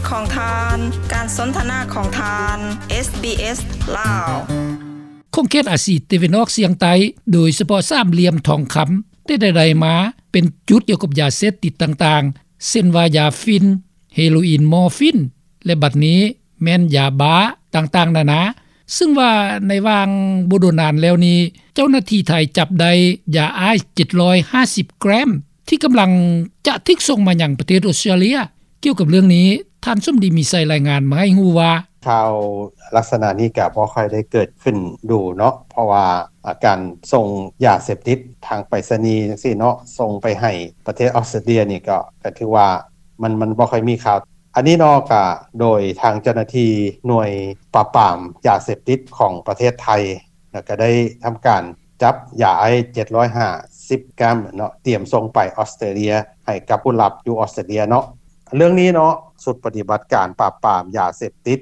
ຂອງທ່ານ, ການສົນທະນາຂອງທ່ານ ເອສບີເອສ ລາວ. ຂົງເຂດອາຊີຕາເວັນອອກສ່ຽງໃຕ້ ໂດຍສະເພາະສາມຫຼ່ຽມທອງຄຳ ແຕ່ໃດໆມາ ເປັນຈຸດກ່ຽວກັບຢາເສບຕິດຕ່າງໆ ເຊັ່ນວ່າ ຢາຝິ່ນ, ເຮໂຣອິນ, ມໍຟີນ ແລະ ບັດນີ້ແມ່ນຢາບ້າຕ່າງໆນານາ. ຊຶ່ງວ່າໃນຫວ່າງບໍ່ດົນນານແລ້ວນີ້ ເຈົ້າໜ້າທີ່ໄທຈັບໄດ້ຢາໄອສ໌ເຈັດຮ້ອຍຫ້າສິບແກຣມ ທີ່ກຳລັງຈະຖືກສົ່ງມາຍັງປະເທດອອສເຕຣເລັຍ. ກ່ຽວກັບເລື່ອງນີ້ ທ່ານສົມດີ ມີໄຊ ລາຍງານມາໃຫ້ຮູ້ວ່າ ຂ່າວລັກສະນະນີ້ກະບໍ່ຄ່ອຍໄດ້ເກີດຂຶ້ນດູເນາະ ເພາະວ່າ ອາ ການສົ່ງຢາເສບຕິດທາງໄປສະນີຈັ່ງຊີ້ເນາະ ສົ່ງໄປໃຫ້ປະເທດອອສເຕຣເລັຍນີ້ ກໍ ກໍຖືວ່າ ມັນ ມັນບໍ່ຄ່ອຍມີຂ່າວ. ອັນນີ້ເນາະ ກະໂດຍທາງເຈົ້າໜ້າທີ່ໜ່ວຍປາບປາມຢາເສບຕິດຂອງປະເທດໄທ ແລ້ວກະໄດ້ທຳການຈັບຢາໄອສ໌ເຈັດຮ້ອຍຫ້າສິບແກຣມເນາະ ຕຽມສົ່ງໄປອອສເຕຣເລັຍ ໃຫ້ກັບຜູ້ລັບຢູ່ອອສເຕຣເລັຍເນາະ. ເລື່ອງນີ້ເນາະ ຊຸດປະຕິບັດການປາບປາມຢາເສບຕິດ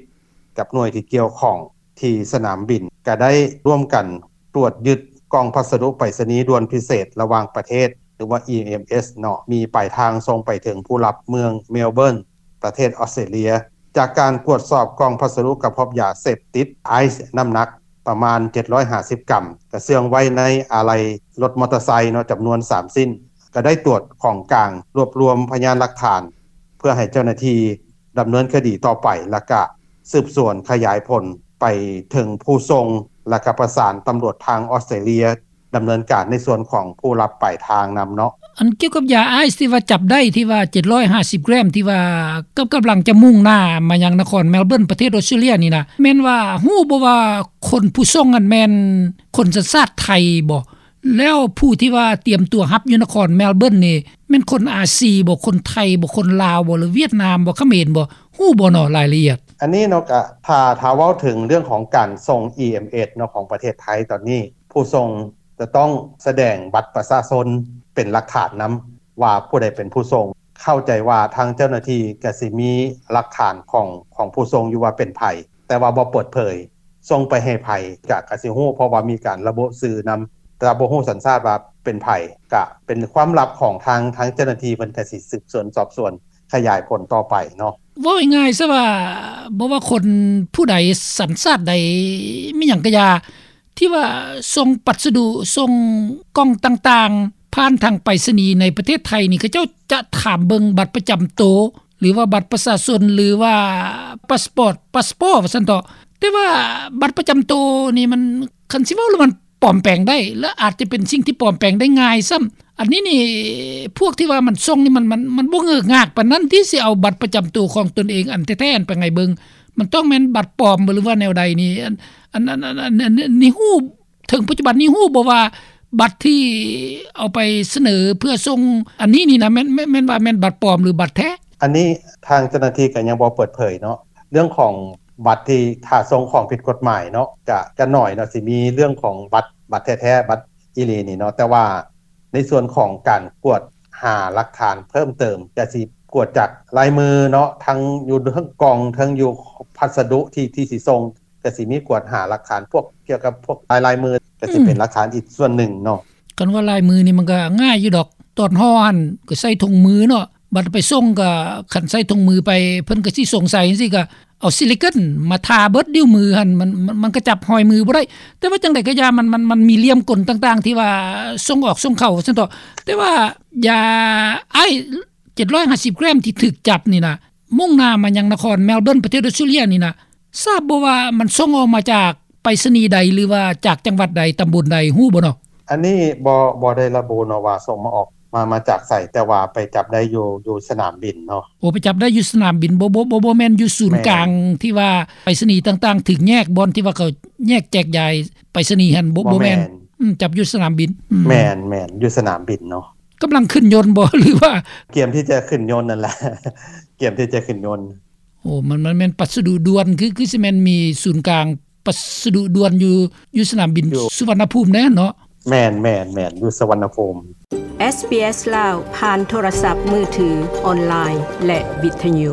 ກັບໜ່ວຍທີ່ກ່ຽວຂ້ອງທີ່ສະໜາມບິນ ກະໄດ້ຮ່ວມກັນຕວດຍຶດກ່ອງພັດສະດຸໄປສະນີດ່ວນພິເສດລະຫວ່າງປະເທດ ຫຼືວ່າ ອີເອັມເອສ ເນາະ ມີປາຍທາງສົ່ງໄປເຖິງຜູ້ຮັບເມືອງເມລເບີນ ປະເທດອອສເຕຣເລັຍ. ຈາກການກວດສອບກ່ອງພັດສະດຸ ກໍພົບຢາເສບຕິດໄອສ໌ນ້ຳໜັກປະມານເຈັດຮ້ອຍຫ້າສິບກຣາມ ກະເຊື່ອງໄວ້ໃນອາໄຫຼ່ລົດມໍເຕີໄຊເນາະ ຈຳນວນສາມຊິ້ນ. ກະໄດ້ຕວດຂອງກາງ ລວບລວມພະຍານຫຼັກຖານ ເພື່ອໃຫ້ເຈົ້າໜ້າທີ່ດຳເນີນຄະດີຕໍ່ໄປ ແລ້ວກະສືບສວນຂະຫຍາຍຜົນໄປເຖິງຜູ້ສົ່ງ ແລ້ວກະປະສານຕຳຫຼວດທາງອອສເຕຣເລັຍ ດຳເນີນການໃນສ່ວນຂອງຜູ້ຮັບປາຍທາງນຳເນາະ. ອັນກ່ຽວກັບຢາໄອສ໌ທີ່ວ່າຈັບໄດ້ ທີ່ວ່າເຈັດຮ້ອຍຫ້າສິບແກຣມ ທີ່ວ່າກຳ ກຳລັງຈະມຸ່ງໜ້າມາຍັງນະຄອນເມລເບີນ ປະເທດອອສເຕຣເລັຍນີ້ນະ ແມ່ນວ່າຮູ້ບໍ່ວ່າຄົນຜູ້ສົ່ງນັ້ນແມ່ນຄົນສັນຊາດໄທບໍ່? ແລ້ວຜູ້ທີ່ວ່າຕຽມຕົວຮັບຢູ່ນະຄອນເມລເບີນນີ້ ແມ່ນຄົນອາຊີບໍ່? ຄົນໄທບໍ່? ຄົນລາວບໍ່? ຫຼືຫວຽດນາມບໍ່? ຂະເໝນບໍ່? ຮູ້ບໍ່ເນາະ ລາຍລະອຽດ? ອັນນີ້ເນາະ ກະຖ້າ ຖ້າເວົ້າເຖິງເລື່ອງຂອງການສົ່ງ ອີເອັມເອສ ເນາະ ຂອງປະເທດໄທຕອນນີ້ ຜູ້ສົ່ງຈະຕ້ອງສະແດງບັດປະຊາຊົນເປັນຫຼັກຖານນຳ ວ່າຜູ້ໃດເປັນຜູ້ສົ່ງ. ເຂົ້າໃຈວ່າທາງເຈົ້າໜ້າທີ່ກະຊິມີຫຼັກຖານຂອງ ຂອງຜູ້ສົ່ງຢູ່ວ່າເປັນໃຜ ແຕ່ວ່າບໍ່ເປີດເຜີຍສົ່ງໄປໃຫ້ໃຜ ກະ ກະຊິຮູ້ ເພາະວ່າມີການລະບຸຊື່ນຳ ແຕ່ວ່າບໍ່ຮູ້ສັນຊາດວ່າເປັນໃຜ ກະເປັນຄວາມລັບຂອງທາງ ທາງເຈົ້າໜ້າທີ່ເພິ່ນກະຊິສືບສວນສອບສວນຂະຫຍາຍຜົນຕໍ່ໄປເນາະ. ເວົ້າງ່າຍໆຊະວ່າ ບໍ່ວ່າຄົນຜູ້ໃດ ສັນຊາດໃດ ມີຫຍັງກະຢ່າ ທີ່ວ່າສົ່ງພັດສະດຸ ສົ່ງກ່ອງຕ່າງໆ ຜ່ານທາງໄປສະນີໃນປະເທດໄທນີ້ ເຂົາເຈົ້າຈະຖາມເບິ່ງບັດປະຈຳໂຕ ຫຼືວ່າບັດປະຊາຊົນ ຫຼືວ່າພາສປອດ ພາສປອດ ວ່າຊັ້ນເຖາະ. ແຕ່ວ່າບັດປະຈຳໂຕນີ້ມັນ ຄັນຊິເວົ້າແລ້ວມັນປອມແປງໄດ້ ແລະ ອາດຈະເປັນສິ່ງທີ່ປອມແປງໄດ້ງ່າຍຊ້ຳ. ອັນນີ້ນີ້ ພວກທີ່ວ່າມັນສົ່ງນີ້ ມັນ ມັນ ມັນບໍ່ເງີກງາກປານນັ້ນ ທີ່ຊິເອົາບັດປະຈຳໂຕຂອງຕົນເອງອັນແທ້ໆນັ້ນໄປໃຫ້ເບິ່ງ. ມັນຕ້ອງແມ່ນບັດປອມ ຫຼືວ່າແນວໃດນີ້? ອັນ ອັນ ອັນ ອັນ ອັນ ອັນ ອັນນີ້ຮູ້ ເຖິງປັດຈຸບັນນີ້ຮູ້ບໍ່ວ່າ ບັດທີ່ເອົາໄປສະເໜີເພື່ອສົ່ງອັນນີ້ນີ້ນະ ແມ່ນ ແມ່ນ ແມ່ນວ່າແມ່ນບັດປອມ ຫຼື ບັດແທ້? ອັນນີ້ທາງເຈົ້າໜ້າທີ່ກໍຍັງບໍ່ເປີດເຜີຍເນາະ ເລື່ອງຂອງບັດທີ່ຖ້າສົ່ງຂອງຜິດກົດໝາຍເນາະ ກະ ກະໜ້ອຍເນາະ ຊິມີເລື່ອງຂອງບັດ ບັດແທ້ໆ ບັດອີ່ຫຼີນີ້ເນາະ. ແຕ່ວ່າໃນສ່ວນຂອງການກວດຫາຫຼັກຖານເພີ່ມເຕີມ ກະຊິກວດຈາກລາຍມືເນາະ ທັງຢູ່ເທິງກ່ອງ ເທິງຢູ່ພັດສະດຸທີ່ ທີ່ຊິສົ່ງ ກະຊິມີກວດຫາຫຼັກຖານພວກ ກ່ຽວກັບພວກລາຍ ລາຍມື ກະຊິເປັນ ອືມ ຫຼັກຖານອີກສ່ວນໜຶ່ງເນາະ. ຄັນວ່າລາຍມືນີ້ມັນກະງ່າຍຢູ່ດອກ ຕອນຫໍ່ຫັ້ນກະໃສ່ຖົງມືເນາະ ບັດໄປສົ່ງກະ ຄັນໃສ່ຖົງມືໄປ ເພິ່ນກະຊິສົງໄສຈັ່ງຊີ້ ກະເອົາຊິລິເກີນມາທາເບິດ ນິ້ວມືຫັ້ນ ມັນ ມັນ ມັນກະຈັບຮອຍມືບໍ່ໄດ້. ແຕ່ວ່າຈັ່ງໃດກະຢ່າ ມັນ ມັນ ມັນມີຫຼ່ຽມກົນຕ່າງໆ ທີ່ວ່າສົ່ງອອກສົ່ງເຂົ້າ ວ່າຊັ້ນເຖາະ. ແຕ່ວ່າຢາໄອສ໌ເຈັດຮ້ອຍຫ້າສິບແກຣມທີ່ຖືກຈັບນີ້ນະ ມຸ່ງໜ້າມາຍັງນະຄອນເມລເບີນ ປະເທດອອສເຕຣເລັຍນີ້ນະ ຊາບບໍ່ວ່າມັນສົ່ງອອກມາຈາກໄປສະນີໃດ ຫຼືວ່າຈາກຈັງຫວັດໃດ ຕຳບົນໃດ ຮູ້ບໍ່ເນາະ? ອັນນີ້ບໍ່ ບໍ່ໄດ້ລະບຸເນາະວ່າສົ່ງມາອອກ ມາ ມາຈາກໃສ ແຕ່ວ່າໄປຈັບໄດ້ຢູ່ ຢູ່ສະໜາມບິນເນາະ. ໂອ ໄປຈັບໄດ້ຢູ່ສະໜາມບິນ ບໍ່ ບໍ່ ບໍ່ ບໍ່ແມ່ນຢູ່ສູນກາງ ແມ່ນ ທີ່ວ່າໄປສະນີຕ່າງໆຖືກແຍກ ບ່ອນທີ່ວ່າເຂົາແຍກແຈກຢາຍໄປສະນີຫັ້ນ ບໍ່ ບໍ່ແມ່ນ ບໍ່ແມ່ນ. ອືມ ຈັບຢູ່ສະໜາມບິນ. ອືມ ແມ່ນ ແມ່ນ ຢູ່ສະໜາມບິນເນາະ. ກຳລັງຂຶ້ນຍົນບໍ່ ຫຼືວ່າ? ກຽມທີ່ຈະຂຶ້ນຍົນນັ້ນແຫຼະ ກຽມທີ່ຈະຂຶ້ນຍົນ. ໂອ້ ມັນ ມັນແມ່ນພັດສະດຸດ່ວນ ຄື ຄືຊິແມ່ນມີສູນກາງພັດສະດຸດ່ວນຢູ່ ຢູ່ສະໜາມບິນ ຢູ່ ສຸວັນນະພູມແດ່ເນາະ? ແມ່ນ ແມ່ນ ແມ່ນ ຢູ່ສຸວັນນະພູມ. ເອສບີເອສ ລາວ ຜ່ານໂທລະສັບມືຖື, ອອນລາຍ ແລະ ວິທະຍຸ.